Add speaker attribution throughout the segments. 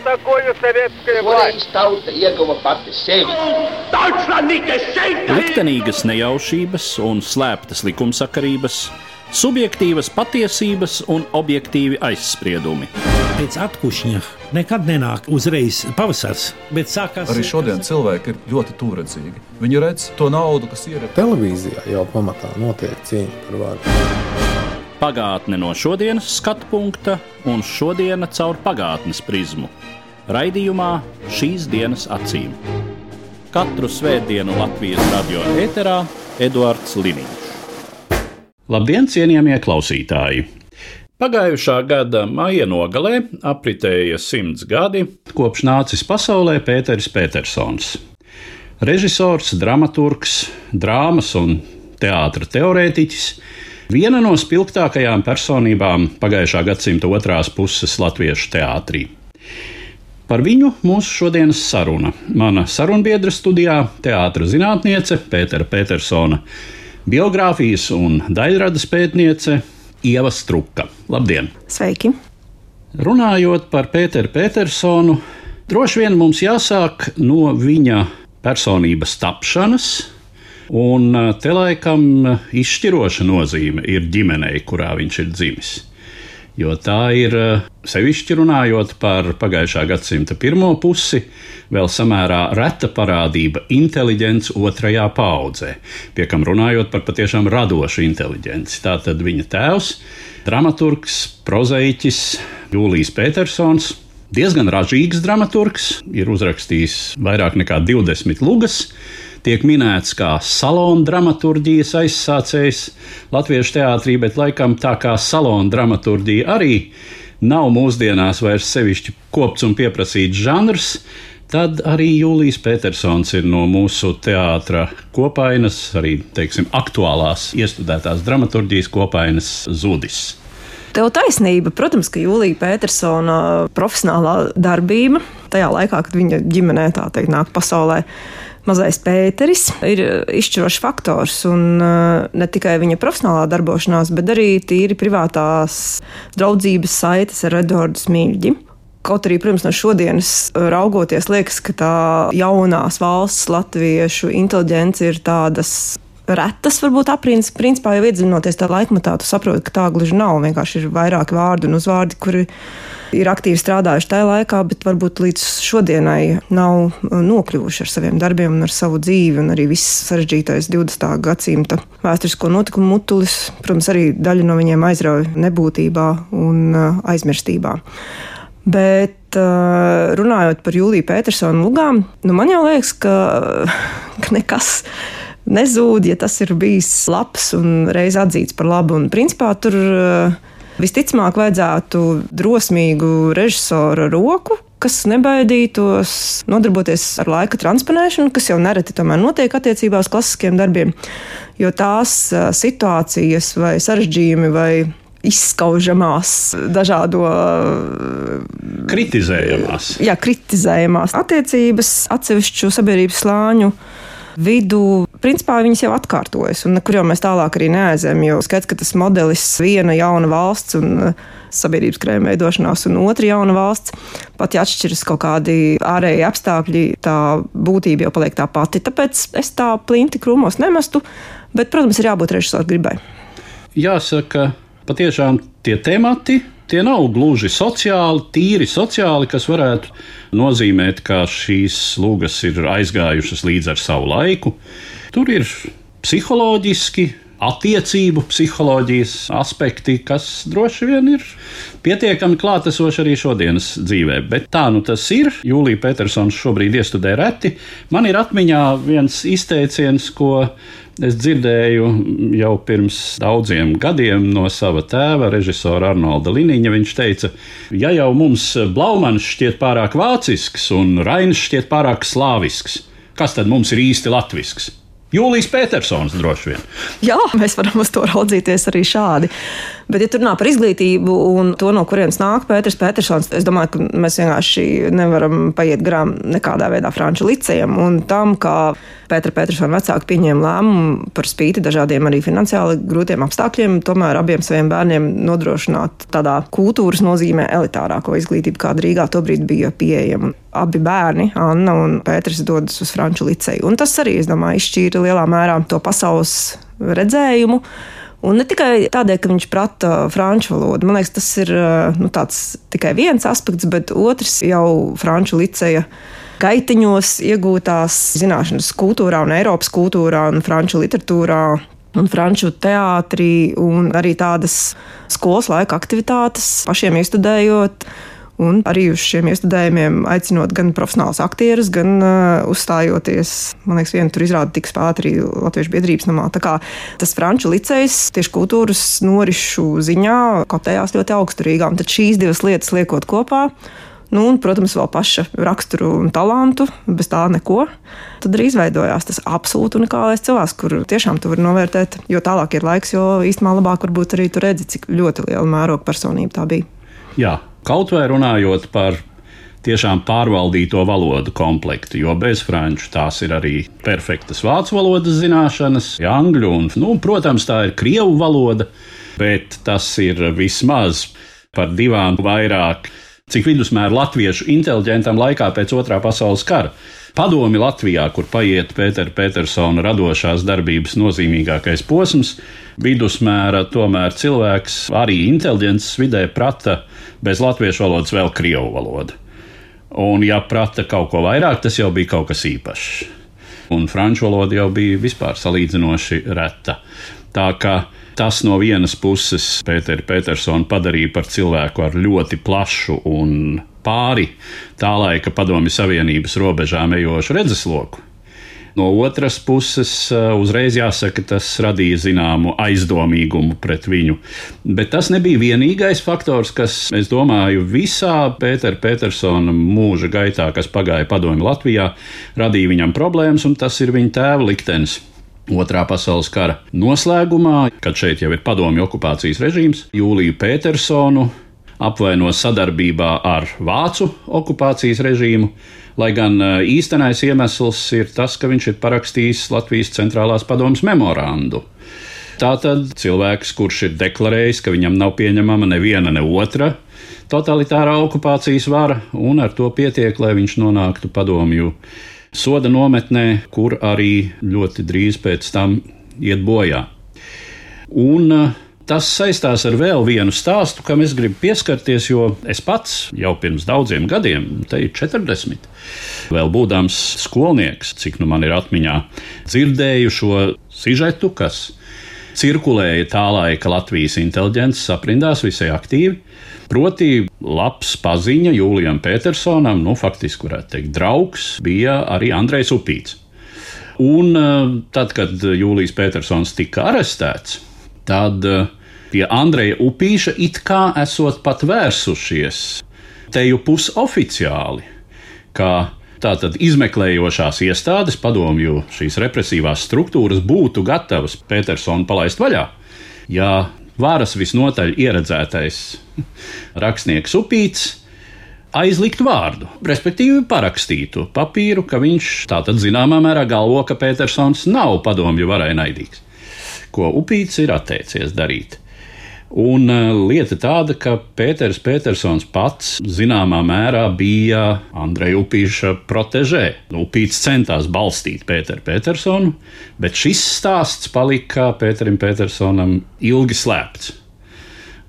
Speaker 1: такое советская власть?
Speaker 2: Tauta ieguva pati sevi.
Speaker 3: Liktenīgas nejaušības un slēptas likumsakarības, subjektīvas patiesības un objektīvi aizspriedumi.
Speaker 4: Pēc atkušņa nekad nenāk uzreiz pavasars, bet sākās...
Speaker 5: Arī šodien cilvēki ir ļoti tūredzīgi. Viņi redz to naudu, kas ir.
Speaker 6: Televīzijā jau pamatā notiek cīņa par varu.
Speaker 3: Pagātne no šodienas skatu punkta un šodiena caur pagātnes prizmu. Raidījumā Šīs dienas acīm. Katru svētdienu Latvijas radio ēterā Eduards Liniņš. Labdien, cienījamie klausītāji! Pagājušā gada maija nogalē apritēja 100 gadi, kopš nācis pasaulē Pēteris Petersons. Režisors, dramaturgs, drāmas un teātra teorētiķis, viena no spilgtākajām personībām pagājušā gadsimta otrās puses latviešu teātrī. Par viņu mūsu šodienas saruna. Mana sarunbiedra studijā teātra zinātniece Pētera Petersona, biogrāfijas un daļradas pētniece Ieva Struka. Labdien!
Speaker 7: Sveiki!
Speaker 3: Runājot par Pēteru Petersonu, droši vien mums jāsāk no viņa personības tapšanas, un te laikam izšķiroša nozīme ir ģimenei, kurā viņš ir dzimis. Jo tā ir, sevišķi runājot par pagājušā gadsimta pirmo pusi, vēl samērā reta parādība inteliģents otrajā paaudzē, pie kam runājot par patiešām radošu inteliģenci. Tātad viņa tēvs, dramaturgs, prozaiķis Jūlijs Petersons, diezgan ražīgs dramaturgs, ir uzrakstījis vairāk nekā 20 lugas, tiek minēts kā salona dramaturģijas aizsācējs latviešu teātrī, bet laikam tā kā salona dramaturģija arī nav mūsdienās vairs sevišķi kopts un pieprasīts žanrs, tad arī Jūlijs Petersons ir no mūsu teātra kopainas, arī, teiksim, aktuālās iestudētās dramaturģijas kopainas zudis.
Speaker 7: Tev taisnība. Protams, ka Jūlija Petersona profesionālā darbība tajā laikā, kad viņa ģimenē, tā teikt, nāk pasaulē mazais Pēteris, ir izšķirošs faktors, un ne tikai viņa profesionālā darbošanās, bet arī tīri privātās draudzības saites ar Eduardu Smilģi. Kaut arī, protams, no šodienas raugoties, liekas, ka tā jaunās valsts latviešu inteliģence ir tādas retas, varbūt aprīnas. Principā jau iedziļinoties tā laikmatā, tu saproti, ka tā gluži nav. Vienkārši ir vairāki vārdi un uzvārdi, kuri ir aktīvi strādājuši tajā laikā, bet varbūt līdz šodienai nav nokļuvuši ar saviem darbiem un ar savu dzīvi, un arī viss sarežģītais 20. gadsimta vēsturisko notikumu mutulis, protams, arī daļa no viņiem aizrauja nebūtībā un aizmirstībā. Bet runājot par Jūliju Petersonu lugām, man jau liekas, ka nekas nezūd, ja tas ir bijis labs un reiz atzīts par labu. Un principā tur visticamāk vajadzētu drosmīgu režisora roku, kas nebaidītos nodarboties ar laika transponēšanu, kas jau nereti tomēr notiek attiecībā uz klasiskiem darbiem, jo tās situācijas vai sarežģījumi vai izskaužamās dažādo kritizējamās attiecības atsevišķu sabiedrības slāņu vidu, principā viņas jau atkārtojas, un nekur jau mēs tālāk arī neaizējam, jo skaidrs, ka tas modelis viena jauna valsts un sabiedrības krējuma veidošanās un otra jauna valsts, pat ja atšķiras kaut kādi ārēji apstākļi, tā būtība jau paliek tā pati. Tāpēc es tā plinti krūmos nemestu, bet, protams, ir jābūt režisoru gribai.
Speaker 3: Jāsaka, patiešām tie temati, tie nav gluži sociāli, tīri sociāli, kas varētu nozīmēt, ka šīs lugas ir aizgājušas līdz ar savu laiku. Tur ir psiholoģiski, attiecību psiholoģijas aspekti, kas droši vien ir pietiekami klātesoši arī šodienas dzīvē. Bet tā nu tas ir. Jūlija Petersons šobrīd iestudē reti. Man ir atmiņā viens izteiciens, ko es dzirdēju jau pirms daudziem gadiem no sava tēva, režisora Arnolda Liniņa. Viņš teica, ja jau mums Blaumans šķiet pārāk vācisks un Rainis šķiet pārāk slāvisks, kas tad mums ir īsti latvisks? Jūlijs Petersons droši vien.
Speaker 7: Jā, mēs varam uz to raudzīties arī šādi. Bet, ja tur runā par izglītību un to, no kurienes nāk Pēters Petersons, es domāju, ka mēs vienkārši nevaram paiet garām nekādā veidā Franču licejam un tam, kā Pētera Petersona vecāki pieņēma lēmumu par spīti dažādiem arī finansiāli grūtiem apstākļiem, tomēr abiem saviem bērniem nodrošināt tādā kultūras nozīmē elitārāko izglītību, kāda Rīgā tobrīd bija pieejama. Abi bērni, Anna un Pēters, dodas uz Franču liceju. Un tas arī, es domāju, izšķīra lielā mērā to pasaules redzējumu. Un ne tikai tādēļ, ka viņš prata franču valodu. Man liekas, tas ir tāds tikai viens aspekts, bet otrs jau Franču liceja gaitiņos iegūtās zināšanas kultūrā un Eiropas kultūrā un franču literatūrā un franču teātrī un arī tādas skolas laika aktivitātes pašiem iestudējot. Un arī uz šiem iestudējumiem aicinot gan profesionālus aktierus, gan uzstājoties, man liekas, viena tur izrāda tika spēlēta arī Latviešu biedrības namā. Tā kā tas Franču licejs tieši kultūras norišu ziņā kotējās ļoti augstu Rīgā. Un tad šīs divas lietas liekot kopā, un, protams, vēl paša raksturu un talantu, bez tā neko, tad arī izveidojās tas absolūti unikālais cilvēks, kur tiešām tu vari novērtēt, jo tālāk ir laiks, jo īstenībā labāk varbūt arī tu redzi, cik ļoti liela mēroga personība tā bija.
Speaker 3: Jā. Kaut vai runājot par tiešām pārvaldīto valodu komplektu, jo bez franču tās ir arī perfektas vācu valodas zināšanas, angļu un, protams, tā ir krievu valoda, bet tas ir vismaz par 2 vairāk, cik vidusmēra latviešu inteliģentam laikā pēc Otrā pasaules kara. Padomi Latvijā, kur paiet Pētera Petersona radošās darbības nozīmīgākais posms, vidusmēra tomēr cilvēks arī inteliģences vidē prata bez latviešu valodas vēl krievu valodu. Un ja prata kaut ko vairāk, tas jau bija kaut kas īpašs. Un franču valoda jau bija vispār salīdzinoši reta. Tā kā tas no vienas puses Pēteru Petersonu padarīja par cilvēku ar ļoti plašu un pāri tā laika Padomju Savienības robežām ejošu redzesloku. No otras puses, uzreiz jāsaka, tas radīja zināmu aizdomīgumu pret viņu. Bet tas nebija vienīgais faktors, kas, es domāju, visā Pētera Petersona mūža gaitā, kas pagāja Padomju Latvijā, radīja viņam problēmas, un tas ir viņa tēva liktenis. Otrā pasaules kara noslēgumā, kad šeit jau ir padomju okupācijas režīms, Jūliju Petersonu apvaino sadarbībā ar vācu okupācijas režīmu, lai gan īstenais iemesls ir tas, ka viņš ir parakstījis Latvijas centrālās padomes memorandu. Tātad cilvēks, kurš ir deklarējis, ka viņam nav pieņemama neviena ne otra totalitārā okupācijas vara, un ar to pietiek, lai viņš nonāktu padomju soda nometnē, kur arī ļoti drīz pēc tam iet bojā. Un tas saistās ar vēl vienu stāstu, kam es gribu pieskarties, jo es pats jau pirms daudziem gadiem, te ir 40, vēl būdams skolnieks, cik nu man ir atmiņā, dzirdēju šo sižetu, kas cirkulēja tā laika Latvijas inteliģences aprindās visai aktīvi. Proti, labs paziņa Jūlijam Petersonam, faktiski varētu teikt draugs, bija arī Andrejs Upīts. Un tad, kad Jūlijs Petersons tika arestēts, tad pie Andreja Upīša it kā esot pat vērsušies teju pusoficiāli, ka tātad izmeklējošās iestādes, padomju šīs represīvās struktūras būtu gatavas Petersonu palaist vaļā, ja varas visnotaļ ieredzētais rakstnieks Upīts aizlikt vārdu, respektīvi parakstītu papīru, ka viņš tātad zināmā mērā galvo, ka Petersons nav padomju varai naidīgs, ko Upīts ir atteicies darīt. Un lieta tāda, ka Pēters Petersons pats zināmā mērā bija Andreja Upīša protežē. Upīts centās balstīt Pēteru Petersonu, bet šis stāsts palika Pēterim Petersonam ilgi slēpts.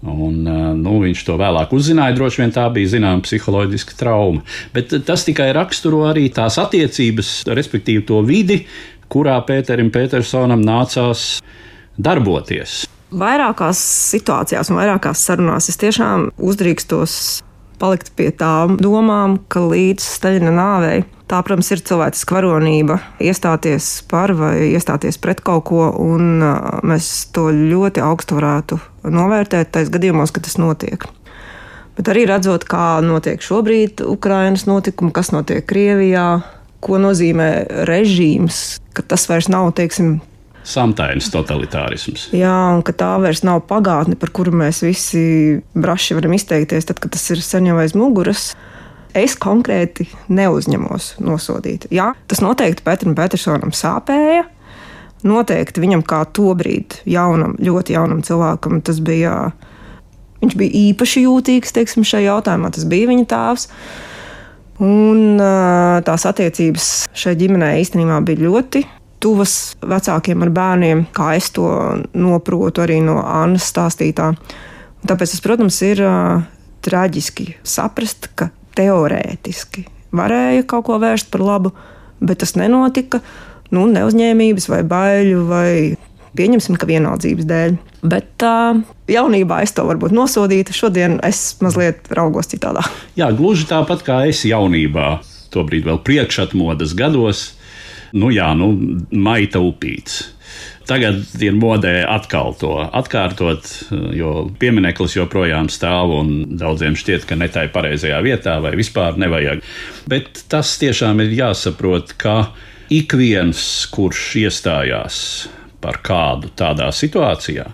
Speaker 3: Un, viņš to vēlāk uzzināja, droši vien tā bija zināma psiholoģiska trauma. Bet tas tikai raksturo arī tās attiecības, respektīvi to vidi, kurā Pēterim Petersonam nācās darboties.
Speaker 7: Vairākās situācijās un vairākās sarunās es tiešām uzdrīkstos palikt pie tām domām, ka līdz Staļina nāvei tā, protams, ir cilvēciska varonība iestāties par vai iestāties pret kaut ko, un mēs to ļoti augstu varētu novērtēt tais gadījumos, ka tas notiek. Bet arī redzot, kā notiek šobrīd Ukrainas notikumi, kas notiek Krievijā, ko nozīmē režīms, ka tas vairs nav, teiksim,
Speaker 3: samtainas totalitārisms.
Speaker 7: Jā, un ka tā vairs nav pagātne, par kuru mēs visi braši varam izteikties, tad, kad tas ir sen jau aiz muguras. Es konkrēti neuzņemos nosodīt. Jā, tas noteikti Pēteram Petersonam sāpēja. Noteikti viņam kā tobrīd ļoti jaunam cilvēkam tas bija, viņš bija īpaši jūtīgs, teiksim, šajā jautājumā. Tas bija viņa tēvs. Un tās attiecības šai ģimenei īstenībā bija ļoti tuvas vecākiem ar bērniem, kā es to noprotu arī no Annas stāstītā. Tāpēc tas, protams, ir traģiski saprast, ka teorētiski varēja kaut ko vērst par labu, bet tas nenotika, neuzņēmības vai baiļu vai pieņemsim, ka vienaldzības dēļ. Bet jaunībā es to varbūt nosodītu, šodien es mazliet raugos citādā.
Speaker 3: Jā, gluži tāpat kā es jaunībā, tobrīd vēl priekšatmodas gados, maita upīts. Tagad ir modē atkal to atkārtot, jo piemineklis joprojām stāv un daudziem šķiet, ka ne tai pareizajā vietā vai vispār nevajag. Bet tas tiešām ir jāsaprot, ka ik viens, kurš iestājās par kādu tādā situācijā,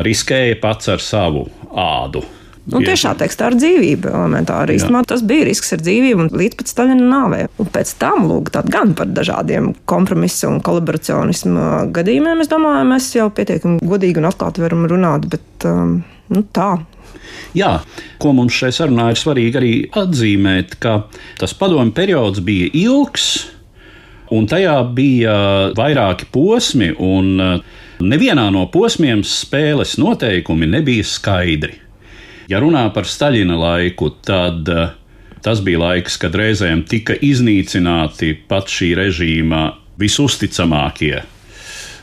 Speaker 3: riskēja pats ar savu ādu.
Speaker 7: Tiešā tekstā ar dzīvību elementāri. Īstenībā tas bija risks ar dzīvību un līdz pat Staļina nāvei. Un pēc tam, gan par dažādiem kompromisu un kolaboracionismu gadījumiem, es domāju, mēs jau pietiekami godīgi un atklāti varam runāt, bet tā.
Speaker 3: Jā, ko mums šai sarunā ir svarīgi arī atzīmēt, ka tas padomju periods bija ilgs, un tajā bija vairāki posmi, un nevienā no posmiem spēles noteikumi nebija skaidri. Ja runā par Staļina laiku, tad tas bija laiks, kad reizēm tika iznīcināti pat šī režīma visusticamākie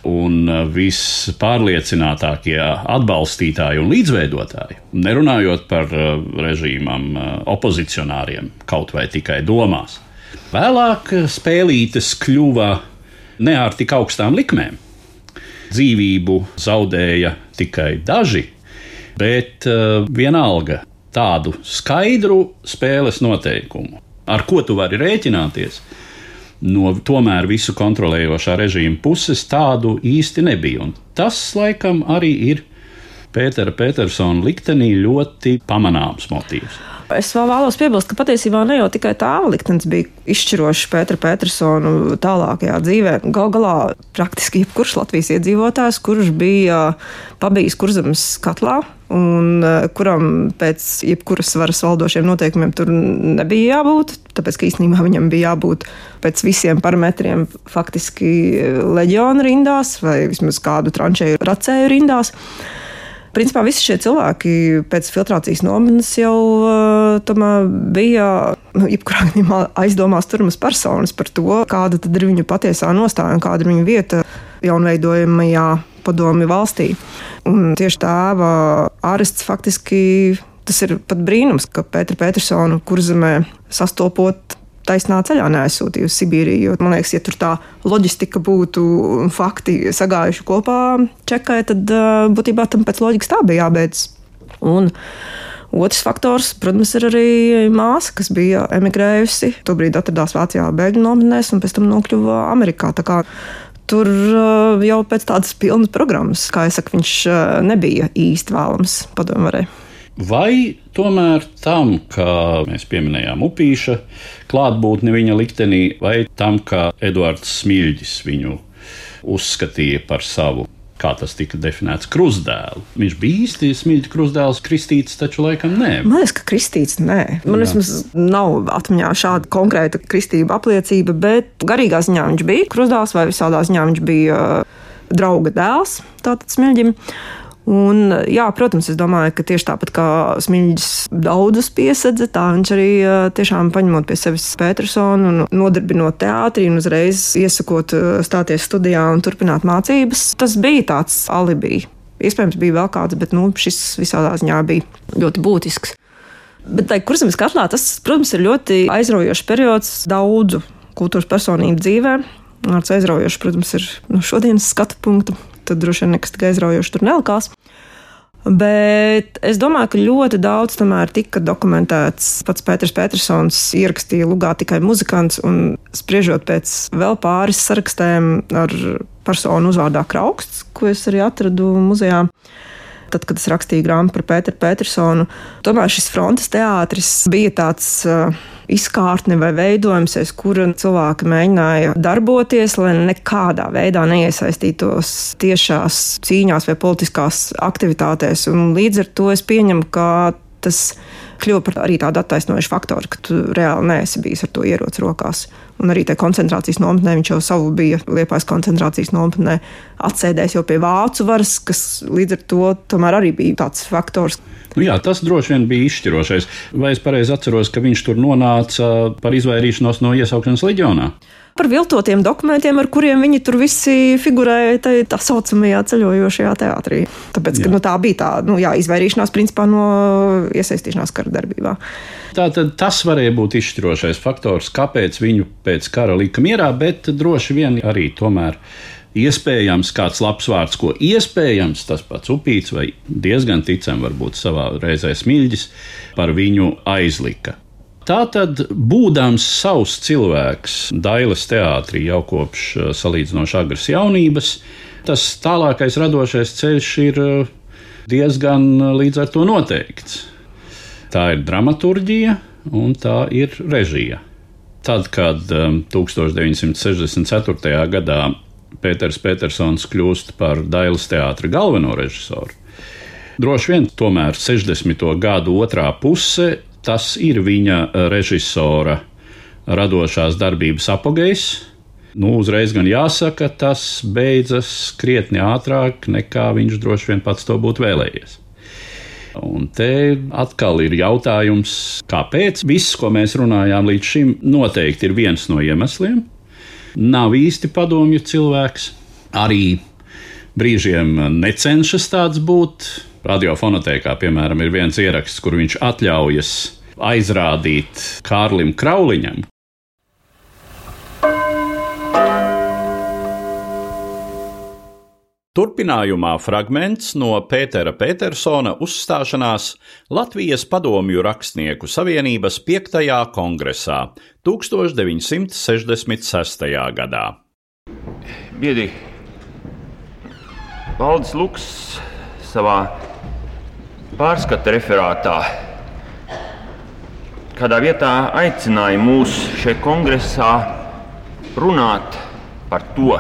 Speaker 3: un vispārliecinātākie atbalstītāji un līdzveidotāji, nerunājot par režīmam opozicionāriem, kaut vai tikai domās. Vēlāk spēlītes kļuva ne ar tik augstām likmēm. Dzīvību zaudēja tikai daži, bet vienalga tādu skaidru spēles noteikumu, ar ko tu vari rēķināties, no tomēr visu kontrolējošā režīma puses tādu īsti nebija. Un tas, laikam, arī ir Pētera Petersona liktenī ļoti pamanāms motīvs.
Speaker 7: Es vēl vēlos piebilst, ka patiesībā ne jau tikai tēva liktenis bija izšķirošs Pētera Petersonu tālākajā dzīvē. Gal galā praktiski jebkurš Latvijas iedzīvotājs, kurš bija pabijis Kurzemes katlā un kuram pēc jebkuras varas valdošiem noteikumiem tur nebija jābūt, tāpēc, ka īstenībā viņam bija jābūt pēc visiem parametriem faktiski leģiona rindās vai vismaz kādu tranšēju racēju rindās. Principā visi šie cilvēki pēc filtrācijas nometnes jau tomēr bija jebkurā gadījumā aizdomās turamas personas par to, kāda tad ir viņu patiesā nostāja un kāda ir viņu vieta jaunveidojamajā padomju valstī. Un tieši tēva arests faktiski, tas ir pat brīnums, ka Pēteru Petersonu Kurzemē sastopot taisnā ceļā neaizsūtīja uz Sibīriju, jo, man liekas, ja tur tā loģistika būtu fakti sagājuši kopā Čekai, tad būtībā tam pēc loģikas tā bija jābeidz. Un otrs faktors, protams, ir arī māsa, kas bija emigrējusi, tobrīd atradās Vācijā bēgļu nometnēs un pēc tam nokļuva Amerikā. Tā kā tur jau pēc tādas pilnas programmas, kā es saku, viņš nebija īsti vēlams padomvarē.
Speaker 3: Vai tomēr tam, kā mēs pieminējām Upīša klātbūtni viņa liktenī, vai tam, ka Eduards Smiļģis viņu uzskatīja par savu, kā tas tika definēts, krustdēlu? Viņš bija īsti Smiļģa krustdēls, kristīts taču laikam nē.
Speaker 7: Man liekas, ka kristīts nē. Man vismaz nav atmiņā šāda konkrēta kristība apliecība, bet garīgā ziņā viņš bija krustdēls vai visādā ziņā viņš bija drauga dēls, tātad Smiļģim. Un, jā, protams, es domāju, ka tieši tāpat kā Smiļģis daudzus piesedza, tā viņš arī tiešām paņemot pie sevis Petersonu un nodarbinot teātrī un uzreiz iesakot stāties studijā un turpināt mācības. Tas bija tāds alibi. Iespējams, bija vēl kāds, bet šis visādā ziņā bija ļoti būtisks. Bet tai Kurzemes katlā tas, protams, ir ļoti aizraujošs periods daudzu kultūras personību dzīvē. Ar aizraujošu, protams, ir no šodienas skatu punktu. Tad droši vien nekas tik aizraujoši tur nelikās. Bet es domāju, ka ļoti daudz tomēr tika dokumentēts. Pats Pēters Petersons ierakstīja lugā tikai muzikants, un spriežot pēc vēl pāris sarakstiem ar personu uzvārdā Krauksts, ko es arī atradu muzejā. Tad, kad es rakstīju grāmatu par Pēteru Petersonu, tomēr šis frontes teātris bija tāds izkārtne vai veidojums, aiz kura cilvēki mēģināja darboties, lai nekādā veidā neiesaistītos tiešās cīņās vai politiskās aktivitātēs. Un līdz ar to es pieņemu, ka tas kļuva par arī tādu attaisnojušu faktoru, ka tu reāli neesi bijis ar to ieroci rokās. Un arī tajā koncentrācijas nometnē viņš jau savu bija Liepājas koncentrācijas nometnē atsēdējis jau pie vācu varas, kas līdz ar to tomēr arī bija tāds faktors.
Speaker 3: Jā, tas droši vien bija izšķirošais. Vai es pareizi atceros, ka viņš tur nonāca par izvairīšanos no iesaukšanas leģionā?
Speaker 7: Par viltotiem dokumentiem, ar kuriem viņi tur visi figurēja tā saucamajā ceļojošajā teātrī. Tāpēc, ka tā bija tā izvairīšanās principā no iesaistīšanās kara darbībā.
Speaker 3: Tātad tas varēja būt izšķirošais faktors, kāpēc viņu pēc kara lika mierā, bet droši vien arī tomēr iespējams kāds labs vārds, ko iespējams tas pats Upīts vai diezgan ticam varbūt savā reizē Smiļģis par viņu aizlika. Tātad, būdams savs cilvēks Dailes teātrī jau kopš salīdzinoši agras jaunības, tas tālākais radošais ceļš ir diezgan līdz ar to noteikts. Tā ir dramaturģija un tā ir režija. Tad, kad 1964. gadā Pēters Petersons kļūst par Dailes teātra galveno režisoru, droši vien tomēr 60. gadu otrā puse tas ir viņa režisora radošās darbības apogejs. Uzreiz gan jāsaka, tas beidzas krietni ātrāk, nekā viņš droši vien pats to būtu vēlējies. Un te atkal ir jautājums, kāpēc? Viss, ko mēs runājām līdz šim, noteikti ir viens no iemesliem. Nav īsti padomju cilvēks, arī brīžiem necenšas tāds būt. Radiofonotēkā, piemēram, ir viens ieraksts, kur viņš atļaujas aizrādīt Kārlim Krauliņam. Turpinājumā fragments no Pētera Petersona uzstāšanās Latvijas padomju rakstnieku savienības 5. kongresā 1966. gadā.
Speaker 8: Biedri, Valdis Luks savā pārskata referātā kādā vietā aicināja mūs šeit kongresā runāt par to,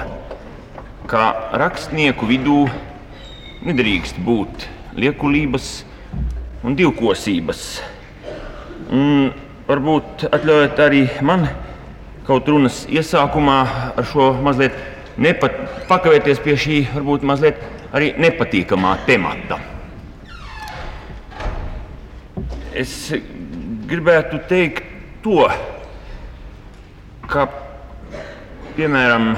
Speaker 8: ka rakstnieku vidū nedrīkst būt liekulības un divkosības. Un varbūt atļaujiet arī man kaut runas iesākumā ar šo mazliet pakavēties pie šī varbūt mazliet arī nepatīkamā temata. Es gribētu teikt to, ka, piemēram,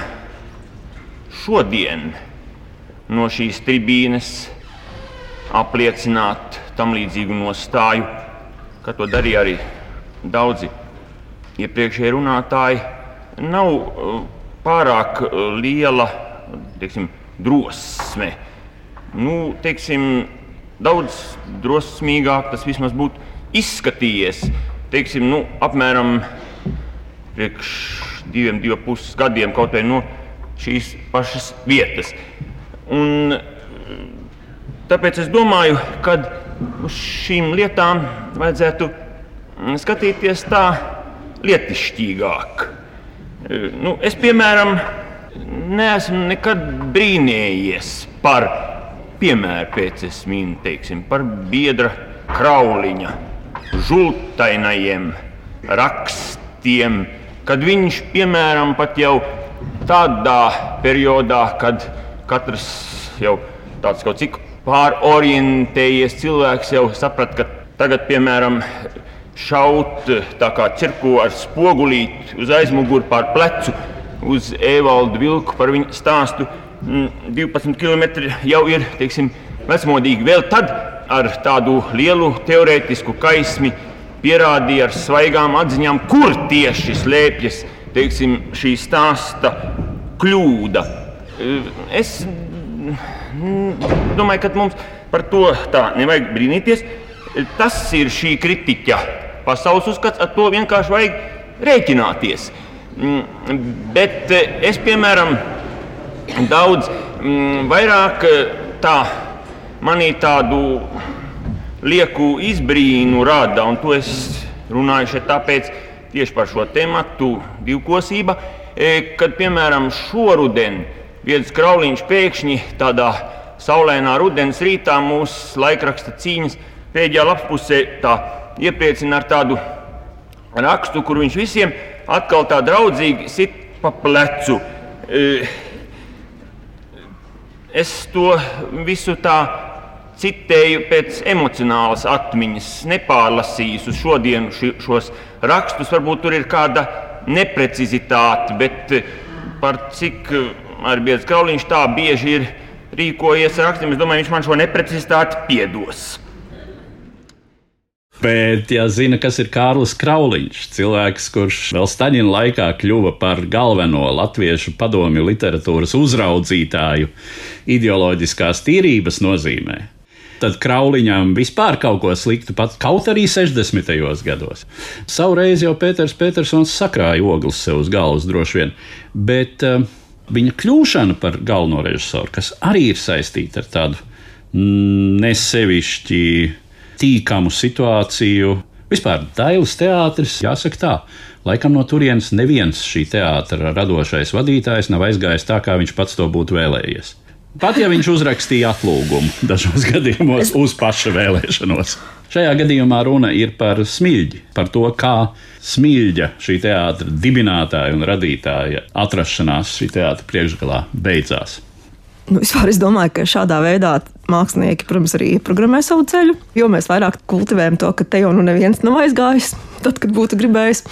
Speaker 8: šodien no šīs tribīnes apliecināt tam līdzīgu nostāju, kā to darīja arī daudzi iepriekšēji runātāji, nav pārāk liela, drosme. Daudz drosmīgāk tas vismaz būtu izskatījies, apmēram priekš 2,5 gadiem kaut vai no šīs pašas vietas. Un tāpēc es domāju, ka uz šīm lietām vajadzētu skatīties tā lietišķīgāk. Es, piemēram, neesmu nekad brīnējies par, piemēram, pēc es minu, par biedra Krauliņa žultainajiem rakstiem, kad viņš, piemēram, pat jau tādā periodā, kad katrs jau tāds kaut cik pārorientējies cilvēks jau saprat, ka tagad, piemēram, šaut tā kā cirko ar spogulīti uz aizmuguri pār plecu uz Evaldu Vilku par viņu stāstu 12 kilometri jau ir, vecmodīgi. Vēl tad ar tādu lielu teorētisku kaismi pierādīja ar svaigām atziņām, kur tieši slēpjas, šī stāsta kļūda. Es domāju, ka mums par to tā nevajag brīnīties. Tas ir šī kritiķa pasaules uzskats, ar to vienkārši vajag rēķināties. Bet es, piemēram, daudz vairāk tā manī tādu lieku izbrīnu rada, un to es runāju šeit tāpēc tieši par šo tematu divkosība, kad, piemēram, šoruden Viedas Krauliņš pēkšņi tādā saulēnā rudens rītā mūsu laikraksta cīņas pēdējā lapspusē tā iepriecina ar tādu rakstu, kur viņš visiem atkal tā draudzīgi sit pa plecu. Es to visu tā citēju pēc emocionālas atmiņas, nepārlasījis uz šodienu šos rakstus. Varbūt tur ir kāda neprecizitāte, bet par cik ar Viedas Krauliņš tā bieži ir rīkojies ar rakstiem, es domāju, viņš man šo neprecizitāti piedos.
Speaker 3: Bet, ja zina, kas ir Kārlis Krauliņš, cilvēks, kurš vēl Staļina laikā kļuva par galveno latviešu padomju literatūras uzraudzītāju ideoloģiskās tīrības nozīmē, tad Krauliņam vispār kaut ko sliktu pat, kaut arī 60. gados. Savreiz jau Pēters Petersons sakrāja ogles sev uz galvas droši vien, bet viņa kļūšana par galveno režisoru, kas arī ir saistīta ar tādu nesevišķi tīkamu situāciju. Vispār Dailes teātris, jāsaka tā, laikam no turienes neviens šī teātra radošais vadītājs nav aizgājis tā, kā viņš pats to būtu vēlējies. Pat ja viņš uzrakstīja atlūgumu dažos gadījumos uz paša vēlēšanos. Šajā gadījumā runa ir par Smiļģi, par to, kā Smiļģa, šī teātra dibinātāja un radītāja atrašanās šī teātra priekšgalā beidzās.
Speaker 7: Vispār es domāju, ka šādā veidā mākslinieki, protams, arī ieprogrammē savu ceļu, jo mēs vairāk kultivējam to, ka te jau neviens nav aizgājis, tad, kad būtu gribējis.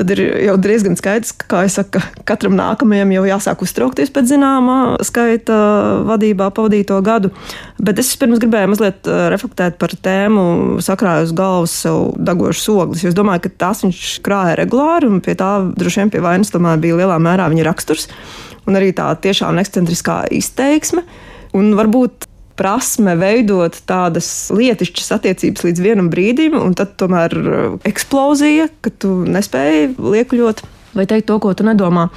Speaker 7: Tad ir jau diezgan skaidrs, ka, kā es saku, katram nākamajam jau jāsāk uztraukties pēc zināmā skaita vadībā pavadīto gadu. Bet es pirms gribēju mazliet reflektēt par tēmu sakrāju uz galvas sev degošas ogles, jo es domāju, ka tās viņš krāja regulāri, un pie tā droši vien pie vainas tomēr bija lielā mērā viņa raksturs. Un arī tā tiešām ekscentriskā izteiksme, un varbūt prasme veidot tādas lietišķas attiecības līdz vienam brīdim, un tad tomēr eksplozija, ka tu nespēji liekuļot vai teikt to, ko tu nedomā.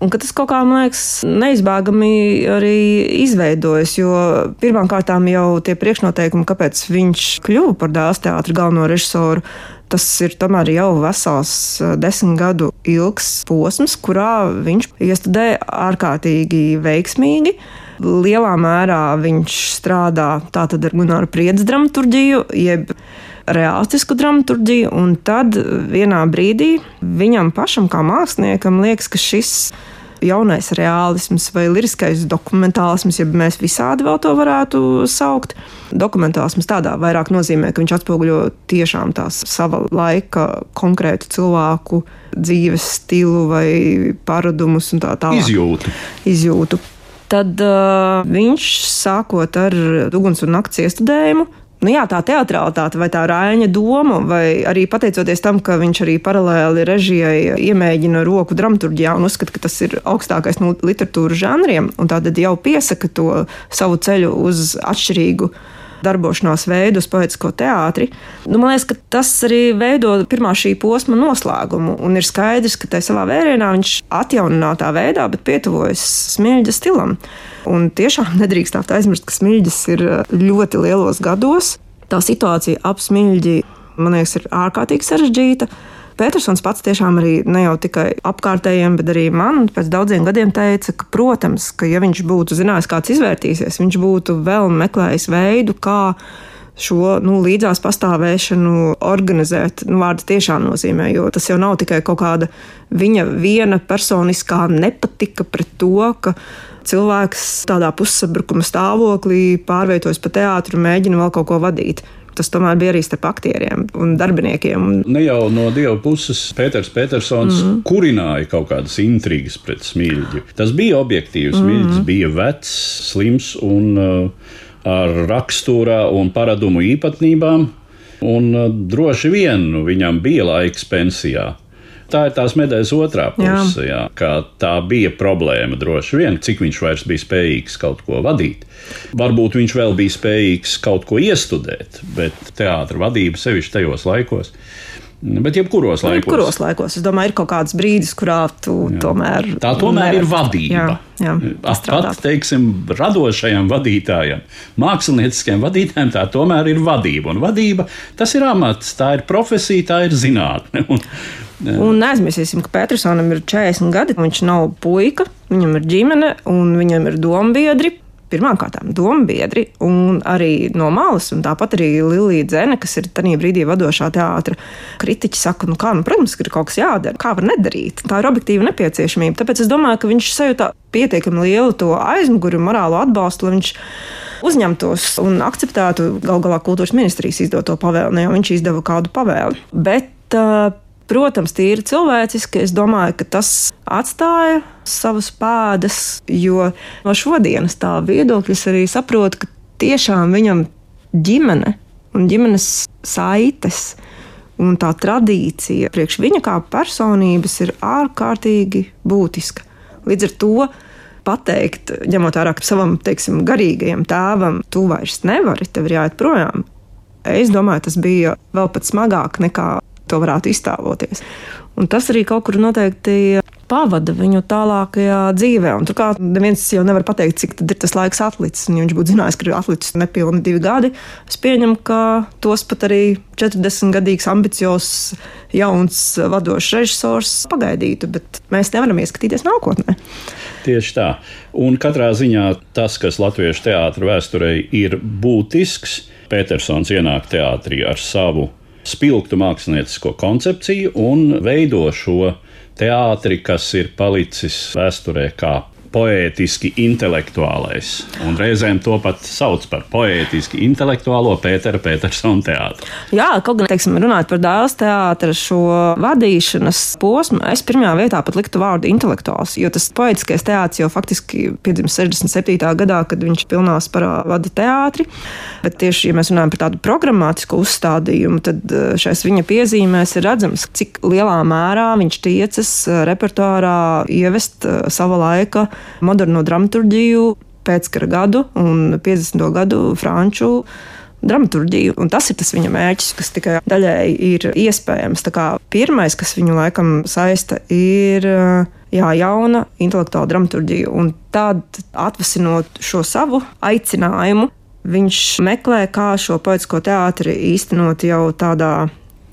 Speaker 7: Un ka tas kaut kā, man liekas, neizbēgami arī izveidojas, jo pirmām kārtām jau tie priekšnoteikumi, kāpēc viņš kļuva par Dailes teātra galveno režisoru, tas ir tomēr jau vesels 10 gadu ilgs posms, kurā viņš iestudēja ārkārtīgi veiksmīgi. Lielā mērā viņš strādā tātad ar Gunāru Priedes dramaturģiju, jeb reālistisku dramaturģiju, un tad vienā brīdī viņam pašam kā māksliniekam liekas, ka šis jaunais reālisms vai liriskais dokumentālisms, ja mēs visādi vēl to varētu saukt. Dokumentālisms tādā vairāk nozīmē, ka viņš atspoguļo tiešām tās sava laika konkrētu cilvēku dzīves stilu vai paradumus un tā tālāk. Izjūtu. Tad viņš sākot ar Uguns un nakts iestudējumu, tā teatralitāte vai tā Raiņa doma, vai arī pateicoties tam, ka viņš arī paralēli režijai iemēģina roku dramaturģijā un uzskata, ka tas ir augstākais no literatūras žanriem, un tātad jau piesaka to savu ceļu uz atšķirīgu darbošanās veidu uz poetisko teātri. Man liekas, ka tas arī veido pirmā šī posma noslēgumu, un ir skaidrs, ka tai savā vērienā viņš atjauninātā veidā, bet pietuvojas Smiļģa stilam. Un tiešām nedrīkstāt aizmirst, ka Smiļģis ir ļoti lielos gados. Tā situācija ap Smiļģi, man liekas, ir ārkārtīgi sarežģīta. Petersons pats tiešām arī ne jau tikai apkārtējiem, bet arī man pēc daudziem gadiem teica, ka, protams, ka ja viņš būtu zinājis, kāds izvērtīsies, viņš būtu vēl meklējis veidu, kā šo līdzās pastāvēšanu organizēt. Vārds tiešām nozīmē, jo tas jau nav tikai kaut kāda viņa viena personiskā nepatika pret to, ka cilvēks tādā pussabrukuma stāvoklī pārvietojas pa teātru un mēģina vēl kaut ko vadīt. Tas tomēr bija arī starp aktieriem un darbiniekiem.
Speaker 3: Ne jau no Dieva puses Pēters Petersons kurināja kaut kādas intrigas pret Smiļģi. Tas bija objektīvs. Smiļģis bija vecs, slims un ar raksturā un paradumu īpatnībām, un droši vien viņam bija laiks pensijā. Tā ir tās medaļas otrā puse, ka tā bija problēma droši vien, cik viņš vairs bija spējīgs kaut ko vadīt. Varbūt viņš vēl bija spējīgs kaut ko iestudēt, bet teātra vadība sevišķi tajos laikos Bet jebkuros
Speaker 7: laikos. Es domāju, ir kaut kāds brīdis, kurā tu tomēr...
Speaker 3: Tā tomēr ir vadība.
Speaker 7: Jā,
Speaker 3: pat, teiksim, radošajam vadītājam, mākslinieckajam vadītājam, tā tomēr ir vadība. Un vadība, tas ir amats, tā ir profesija, tā ir zinātne.
Speaker 7: Un neaizmirsīsim, ka Petersonam ir 40 gadi, viņš nav puika, viņam ir ģimene un viņam ir dombiedri. Pirmkārtām dombiedri un arī no malas, un tāpat arī Lilija Dzene, kas ir tajā brīdī vadošā teātra kritiķi, saka, protams, ka ir kaut kas jādara, kā var nedarīt. Tā ir objektīva nepieciešamība. Tāpēc es domāju, ka viņš sajūta pietiekami lielu to aizmuguri un morālo atbalstu, lai viņš uzņemtos un akceptētu gal galā kultūras ministrijas izdoto pavēli, jo viņš izdeva kādu pavēli. Bet, protams, tīri cilvēciski, es domāju, ka tas atstāja savas pēdas, jo no šodienas tā viedokļas arī saprotu, ka tiešām viņam ģimene un ģimenes saites un tā tradīcija priekš viņa kā personības ir ārkārtīgi būtiska. Līdz ar to pateikt, ņemot vērā savam, teiksim, garīgajam tēvam, tu vairs nevari, tev ir jāiet projām. Es domāju, tas bija vēl pat smagāk nekā to varētu iztēloties. Un tas arī kaut kur noteikti pavada viņu tālākajā dzīvē. Un turklāt neviens jau nevar pateikt, cik tad ir tas laiks atlicis. Un ja viņš būtu zinājis, ka ir atlicis nepilni 2 gadi, es pieņemu, ka tos pat arī 40-gadīgs, ambiciozs, jauns, vadošs režisors pagaidītu, bet mēs nevaram ieskatīties nākotnē.
Speaker 3: Tieši tā. Un katrā ziņā tas, kas latviešu teātra vēsturei ir būtisks, Petersons ienāk teātrī ar savu spilgtu māksliniecisko koncepciju un veido šo teātri, kas ir palicis vēsturē kā poētiski intelektuālais. Un reizēm to pat sauc par poētiski intelektuālo Pētera Petersona teātru.
Speaker 7: Jā, kaut gan, teiksim, runājot par Dēls teātra šo vadīšanas posmu, es pirmajā vietā pat liktu vārdu intelektuāls, jo tas poētiskais teātris jau faktiski piedzimis 67. gadā, kad viņš pilnā sparā vada teātri. Bet tieši, ja mēs runājam par tādu programmātisku uzstādījumu, tad šais viņa piezīmēs ir redzams, cik lielā mērā viņš tiecas repertuārā ievest sava laika moderno dramaturģiju, pēckara gadu un 50. gadu franču dramaturģiju. Un tas ir tas viņa mērķis, kas tikai daļēji ir iespējams. Tā kā pirmais, kas viņu laikam saista, ir jauna intelektuāla dramaturģija. Un tad, atvasinot šo savu aicinājumu, viņš meklē, kā šo poētisko teātri īstenot jau tādā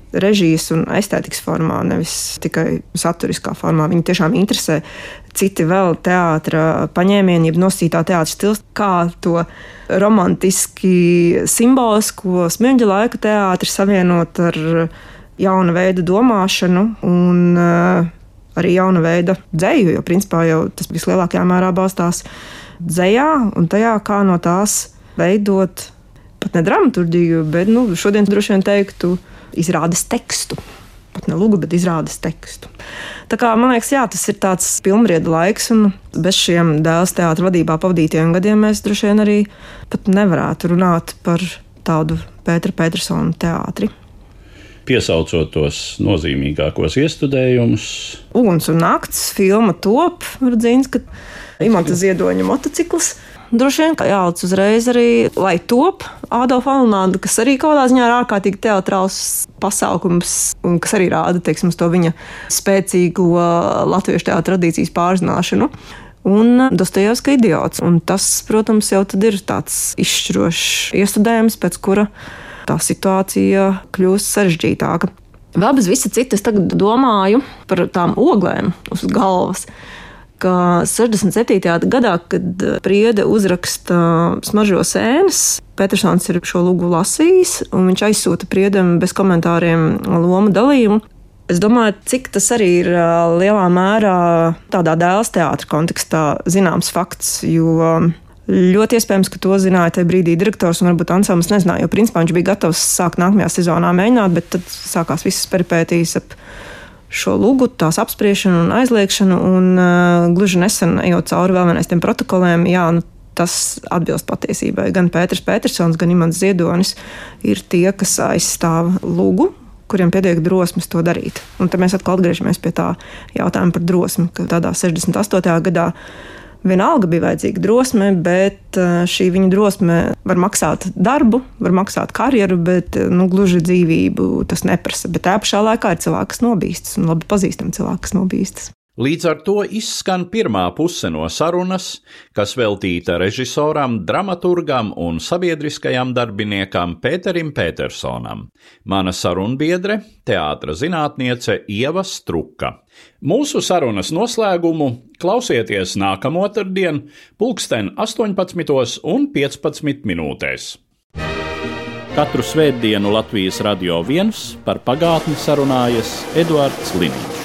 Speaker 7: režijas un estētikas formā, nevis tikai saturiskā formā. Viņu tiešām interesē citi vēl teātra paņēmieni, jeb nosacītā teātra stils, kā to romantiski simbolisko Smirņģa laika teātri savienot ar jauna veida domāšanu un arī jauna veida dzeju, jo principā jau tas vislielākajā mērā balstās dzejā un tajā, kā no tās veidot pat ne dramaturģiju, bet šodien droši vien teiktu izrādes tekstu. Pat ne lugu, bet izrādes tekstu. Tā kā, man liekas, jā, tas ir tāds pilnbrieda laiks, un bez šiem Dēls teātra vadībā pavadītajiem gadiem mēs droši vien arī pat nevarētu runāt par tādu Pētera Petersona teātri.
Speaker 3: Piesaucot tos nozīmīgākos iestudējumus.
Speaker 7: Uguns un nakts, filma top, Rudzīns, ka Imanta Ziedoņa motocikls. Droši vien, ka jālic uzreiz arī, lai top Ādolfa Alunāda, kas arī kaut kādā ziņā ir ārkārtīgi teatrāls pasākums, un kas arī rāda, teiksim, to viņa spēcīgo latviešu teātra tradīcijas pārzināšanu. Un Dostojevska idiots. Un tas, protams, jau tad ir tāds izšķirošs iestudējums, pēc kura tā situācija kļūst sarežģītāka. Vēl bez visa cita es tagad domāju par tām oglēm uz galvas, ka 67. gadā, kad Priede uzraksta Smaržo sēnes, Petersons ir šo lugu lasījis, un viņš aizsūta Priedem bez komentāriem lomu dalījumu. Es domāju, cik tas arī ir lielā mērā tādā Dēls teātra kontekstā zināms fakts, jo ļoti iespējams, ka to zināja tajā brīdī direktors un varbūt ansamblis nezināja, jo principā viņš bija gatavs sākt nākamajā sezonā mēģināt, bet tad sākās visas peripētīs ap šo lugu, tās apspriešanu un aizliekšanu, un gluži nesen ejot cauri vēl vienais tiem protokoliem, tas atbilst patiesībai. Gan Pēters Petersons, gan Imants Ziedonis ir tie, kas aizstāv lugu, kuriem pietiek drosmes to darīt. Un tad mēs atkal atgriežamies pie tā jautājuma par drosmi, ka tādā 68. gadā Vienalga bija vajadzīga drosme, bet šī viņa drosme var maksāt darbu, var maksāt karjeru, bet gluži dzīvību tas neprasa. Bet tā pašā laikā ir cilvēki, kas nobīstas, un labi pazīstami cilvēki, kas nobīstas.
Speaker 3: Līdz ar to izskan pirmā puse no sarunas, kas veltīta režisoram, dramaturgam un sabiedriskajam darbiniekam Pēterim Petersonam. Mana sarunbiedre, teātra zinātniece Ieva Struka. Mūsu sarunas noslēgumu klausieties nākamo otrdien, 18:15. Katru svētdienu Latvijas Radio 1 par pagātni sarunājas Eduards Liniņš.